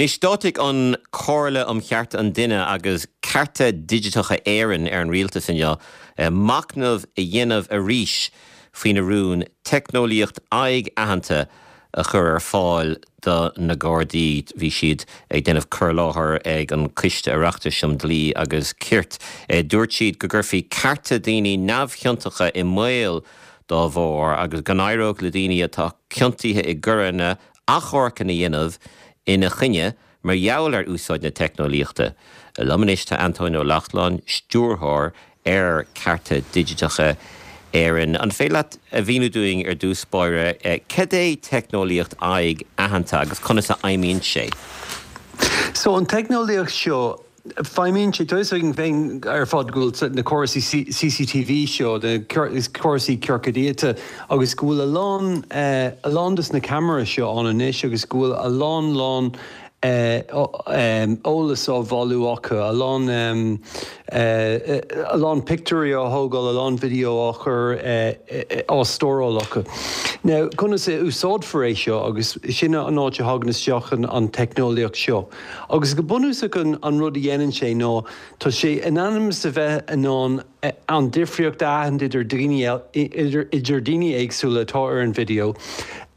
Anois, d'áitigh an Chomhairle um Chearta an Duine agus Cearta Digiteacha Éireann ar an Rialtas inniu machnamh a dhéanamh arís faoina rún teicneolaíocht aghaidh-aitheanta a chur ar fáil do na Gardaí. Bhí siad ag déanamh cur i láthair ag an Coiste Oireachtais um Dhlí agus Cirt. Dúirt siad go gcuirfí cearta daoine neamhchiontacha i mbaol dá bharr agus go n-éireodh le daoine atá ciontaithe i gcoireanna achomharcanna a dhéanamh ina choinne mar gheall ar úsáid na teicneolaíochta. Liom anois tá Antóin Ó Lachtnáin, Stiúrthóir ar Cearta Digiteacha Éireann. An féidir leat a mhíniú dúinn ar dtús báire cad é teicneolaíocht aghaidh aitheanta agus conas a fheidhmíonn sé? So an teicneolaíocht seo, Feidhmíonn sé, tá fhios againn féin ar fad go bhfuil na córasaí CCTV seo, na córasaí ciorcad iata agus go bhfuil a lán, a lán dos na ceamaraí seo ann anois agus go bhfuil a lán lán eolas á bhailiú acu, a lán, a lán pictiúirí á thógáil, a lán video á chur, á stóráil acu. Now, conas a úsáidfear é seo agus sin an áit a thagann isteach an teicneolaíocht seo. Agus go bunúsach an rud a dhéanann sé ná tá sé in ainm is a bheith in ann an difríocht a aithint idir daoine idir daoine éagsúla atá ar an video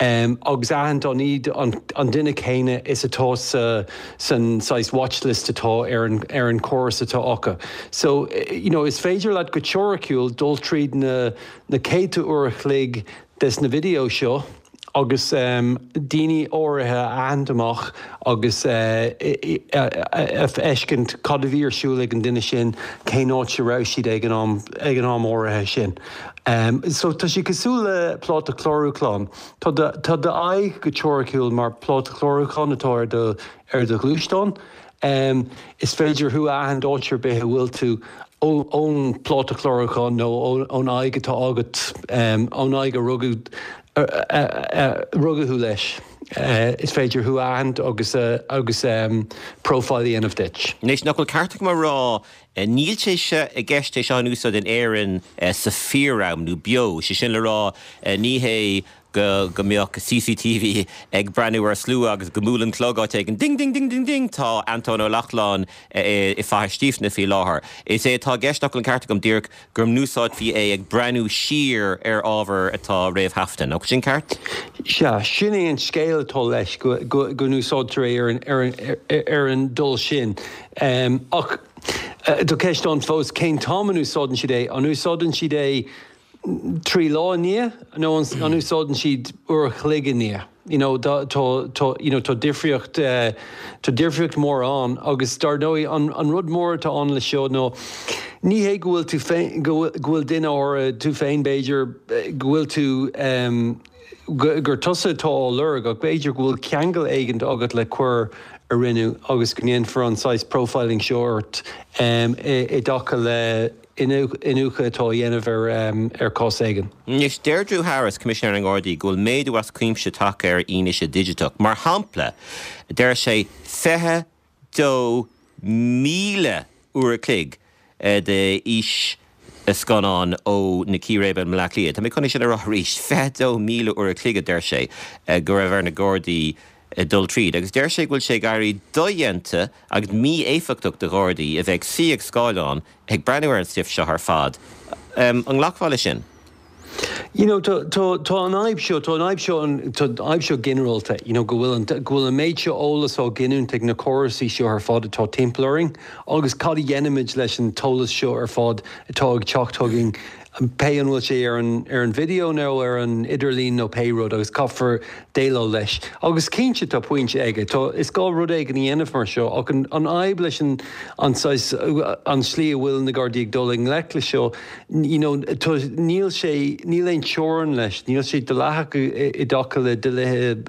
agus aithint an iad an duine céanna is atá sa san saghas watchlist atá ar an ar an córas atá acu. So you know is féidir leat go teoiriciúil dul tríd na na céadta uair a chloig des na video seo agus daoine áirithe a aithint amach agus a fheiscint cad a bhí ar siúl ag an duine sin, cén áit a raibh siad ag an am, ag an am áirithe sin. So tá sé cosúil le pláta clárúcháin. Tá do, tá d'aghaidh go teoiriciúil mar pláta clárúcháin atá ar do, ar do ghluaisteán. Is féidir thú a aithint áit ar bith a bhfuil tú ón bpláta clárúcháin nó ón aghaidh atá agat, ón aghaidh a rugadh rugadh thú leis. Is féidir thú a aithint agus agus profile a dhéanamh duit. Anois, nach bhfuil ceart agam a rá, níl sé seo i gceist é seo in úsáid in Éirinn sa fíor-am nó beo, sé sin le rá, ní hé go go mbeadh CCTV ag breathnú ar slua agus go mbuaileann clog áit éigin, ding ding ding ding ding, tá Antóin Ó Lachtnáin i Faiche Stífne faoi láthair. Is é atá i gceist, nach bhfuil an ceart agam, díreach go n-úsáidfí é ag breathnú siar ar ábhar atá réamhthaifeadta. Nach bhfuil sin ceart? Sea, sin é an scéal atá leis, go go n-úsáidtear é ar an ar an ar an dul sin. Ach tá ceist ann fós, cén t-am a n-úsáideann siad é? An úsáideann siad é 3 lá i ndiaidh nó an úsáideann siad uair a chloig i ndiaidh? You know tá tá you know tá difríocht tá difríocht mór ann agus dar ndóigh an an rud mór atá ann le seo nó ní hé go bhfuil tú féin go bhfuil go bhfuil duine áirithe tú féin b'fhéidir go bhfuil tú gur tusa atá á lorg ach b'fhéidir go bhfuil ceangal éigin agat le coir a rinneadh agus go ndéanfar an saghas profiling seo ort i dtaca le iniúchadh atá á dhéanamh ar chás éigin. Anois, deir Drew Harris, Coimisinéir na nGardaí, go bhfuil méadú as cuimse tagtha ar fhianaise dhigiteach. Mar shampla, deir sé, 22,000 uair a chloig de fhíscannán ó na círéibe i mBleá Cliath. Tá mé chun é sin a rá arís, 22,000 uair a chloig, a deir sé, go raibh ar na Gardaí dul tríd. Agus deir sé go bhfuil sé ag éirí dodhéanta agus mí-éifeachtach do Ghardaí a bheith ag suí ag scáileán ag breathnú ar an stuif seo ar fad. An nglacfá leis sin? You know, tá, tá, tá an fhadhb seo, tá an fhadhb seo, tá an fhadhb seo ginearálta, you know, go bhfuil an, go bhfuil an méid seo eolas á ghiniúint ag na córasaí seo ar fad atá timpeall orainn agus cad a dhéanaimid leis an t-eolas seo ar fad atá ag teacht chugainn pé an bhfuil sé ar an ar an video nó ar an idirlíon nó pé rud agus caithfear déileáil leis. Agus cinnte tá pointe aige, tá, is gá rud éigin a dhéanamh mar seo ach an an fhadhb leis an an saghas, an slí a bhfuil na Gardaí ag dul i ngleic le seo, you know, tá, níl sé, níl aon teorainn leis, níl sé dleathach i dtaca le dlíthe,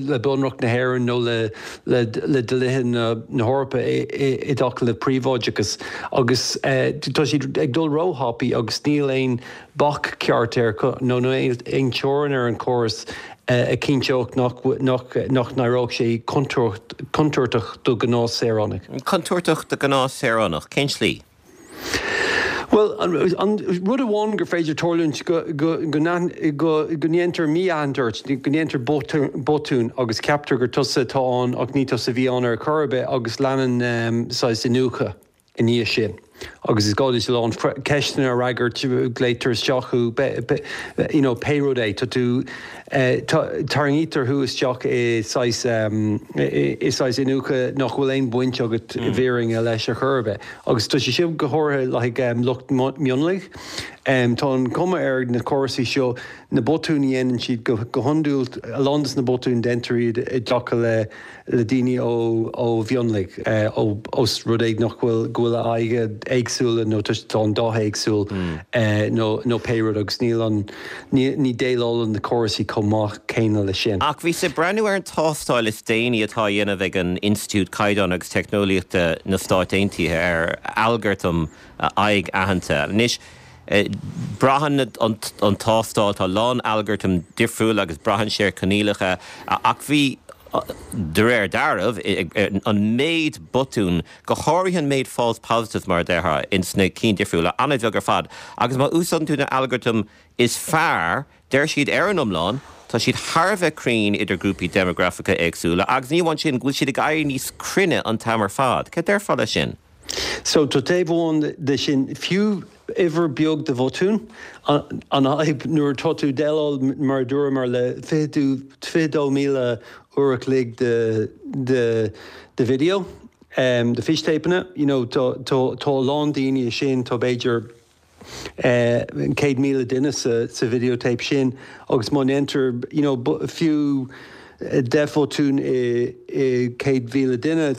le Bunreacht na hÉireann nó le le le dlíthe na na hEorpa i i i dtaca le príobháideachas agus tá siad ag dul róthapaidh agus níl aon bac ceart air nó aon teorainn ar an chóras a chinnteodh nach nach nach n-éireodh sé contúirteach do ghnáthshaoránaigh. Contúirteach do ghnáthshaoránach? Cén tslí? Bhuel, an rud amháin gur féidir tarlúint go go ndéantar mí-aithint ort, go ndéantar botún agus ceaptar gur tusa atá ann ach ní tusa a bhí ann ar chor ar bith agus leanann saghas iniúchadh i ndiaidh sin agus is gá duit a lán ceisteanna a fhreagairt, glaotar isteach thú, you know, pé rud é, tá tú, tarraingítear thú isteach i saghas, i saghas iniúchadh nach bhfuil aon bhaint agat i bhfírinne leis ar chor ar bith. Agus tá sé seo go háirithe le haghaidh lucht mionlaigh. Tá an chuma ar na córasaí seo, na botúin a dhéanann siad go hiondúil, a lán de na botúin déantar iad i dtaca le le daoine ó mhionlaigh, ós rud é nach bhfuil, go bhfuil a aghaidhe éagsúla nó tá an dath éagsúil nó nó pé rud agus níl an, ní déileálann na córasaí chomh maith céanna leis sin. Ach bhíos ag breathnú ar an tástáil is déanaí atá á dhéanamh ag an Institiúid Caighdeán agus Teicneolaíochta na Stáit Aontaithe ar algartam aghaidh-aitheanta. Anois, braitheann an tástáil, tá a lán algartam difriúil agus braitheann sé ar choinníollacha, ach bhí, de réir dealraimh, an méid botún, go háirithe an méid false positives mar a déarfá, ins na cinn difriúla, an-bheag ar fad. Agus má úsáideann tú na algartaim is fearr, deir siad ar an iomlán, tá siad thar a bheith cruinn idir grúpaí déimeagrafacha éagsúla agus ní amháin sin, go bhfuil siad ag éirí níos cruinne an t-am ar fad. Cad déarfá leis sin? So, tá taobh amháin de sin, fiú uimhir beag de bhotúin, an fhadhb nuair atá tú ag déileáil, mar a dúramar, le 22,000 uair a chloig de de de video, de fístéipeanna, you know, tá tá a lán daoine sin, tá b'fhéidir 100,000 duine sa video tape sin agus má ndéantar you know fiú 10 bhotún i 100,000 duine,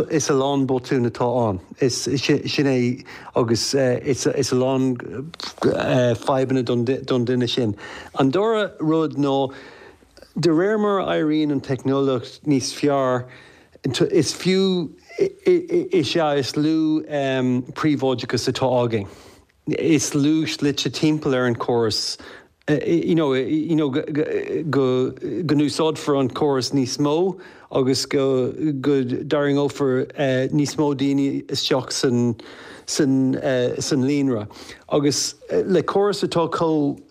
is a lán botún atá ann. Is sin é agus is a lán fadhbanna don duine sin. An dara rud ná de réir mar a éiríonn an teicneolaíocht níos fearr, is fiú is ea is lú príobháideachas atá againn. Is lú slite timpeall ar an chóras you know you know go go n-úsáidfear an córas níos mó agus go go dtarraingeofar níos mó daoine isteach san san san líonra. Agus le córas atá chomh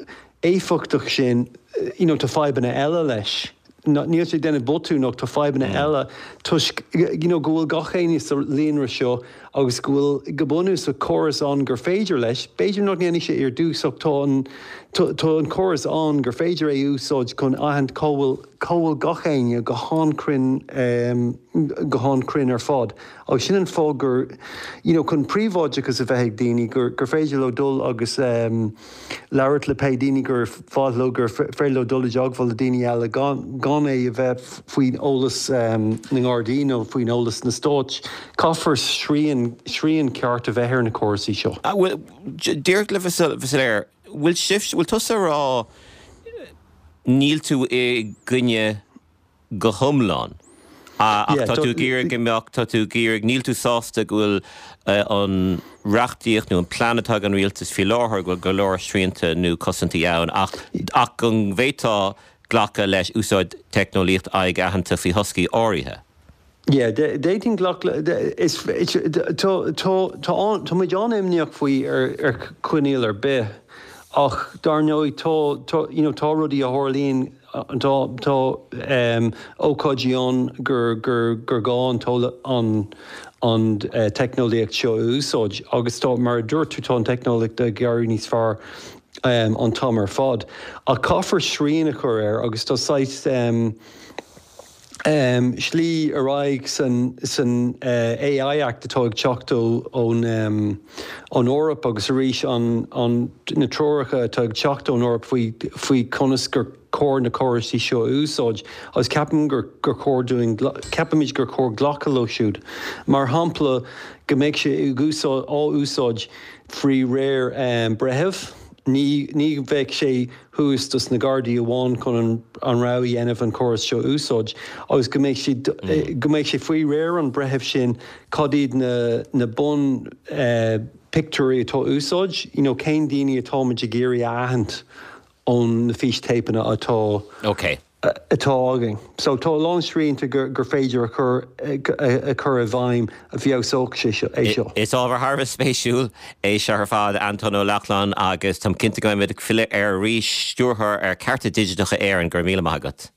éifeachtach sin you know tá fadhbanna eile leis. Níl sé ag déanamh botún ach tá fadhbanna eile toisc you know go bhfuil gach éinne sa líonra seo agus go bhfuil go bunúsach córas ann gur féidir leis, b'fhéidir nach ndéanfaidh sé ar dtús ach tá an tá an córas ann gur féidir é a úsáid chun aithint cá bhfuil cá bhfuil gach éinne go han-chruinn go han-chruinn ar fad agus sin an fáth gur you know chun príobháideachas a bheith ag daoine gur gur féidir leo dul agus labhairt le pé daoine gur mhaith leo, gur féidir leo dul i dteagmháil le daoine eile gan gan é a bheith faoin eolas na nGardaí nó faoin eolas na stáit. Caithfear srian, srian ceart a bheith ar na córasaí seo. Bhuel, díreach le bheith soiléir, bhfuil sibh, bhfuil tusa ag rá níl tú i gcoinne go hiomlán. Ach tá tú ag iarraidh go mbeadh, tá tú ag iarraidh, níl tú sásta go bhfuil an reachtaíocht nó an plean atá ag an rialtas faoi láthair, go bhfuil go leor srianta nó cosaintí ann ach ach go bhféadfá glacadh leis úsáid teicneolaíocht aghaidh-aitheanta faoi thoscaí áirithe. Yeah, d'fhéadfainn glacadh le, is, tá, tá, tá, tá muid an-imníoch faoi ar, ar choinníoll ar bith ach dar ndóigh tá, tá, you know, tá rudaí a tharlaíonn, tá, tá ócáidí ann gur, gur, gur gá an an, an teicneolaíocht seo a úsáid agus tá, mar a dúirt tú, tá an teicneolaíocht ag éirí níos fearr an t-am ar fad ach caithfear srian a chur air agus tá saghas, slí ar aghaidh san AI Act atá ag teacht ón Eoraip agus arís na treoracha atá ag teacht ón Eoraip faoi conas gur cóir na córaisí seo a úsáid agus ceapaim gur chóir dúinn, ceapaimid gur chóir glacadh leo siúd. Mar shampla, go mbeidh sé á úsáid faoi réir breithimh, ní bheadh sé thuas dos na Gardaí amháin chun an rogha a dhéanamh an córas seo a úsáid agus go mbeidh sé go mbeidh sé faoi réir an bhreithimh sin cad iad na na bun pictiúirí atá á úsáid, you know cén daoine atáimid ag iarraidh a aithint ón na fístéipeanna atá Ok. atá againn. So tá a lán srianta gur féidir a chur a chur i bhfeidhm a fheabhsódh sé seo, é seo. Is ábhar thar a bheith spéisiúil é seo ar fad, Antóin Ó Lochlainn, agus táim cinnte go mbeimid ag filleadh air arís. Stiúrthóir ar Cearta Digiteacha Éireann, go raibh míle maith agat.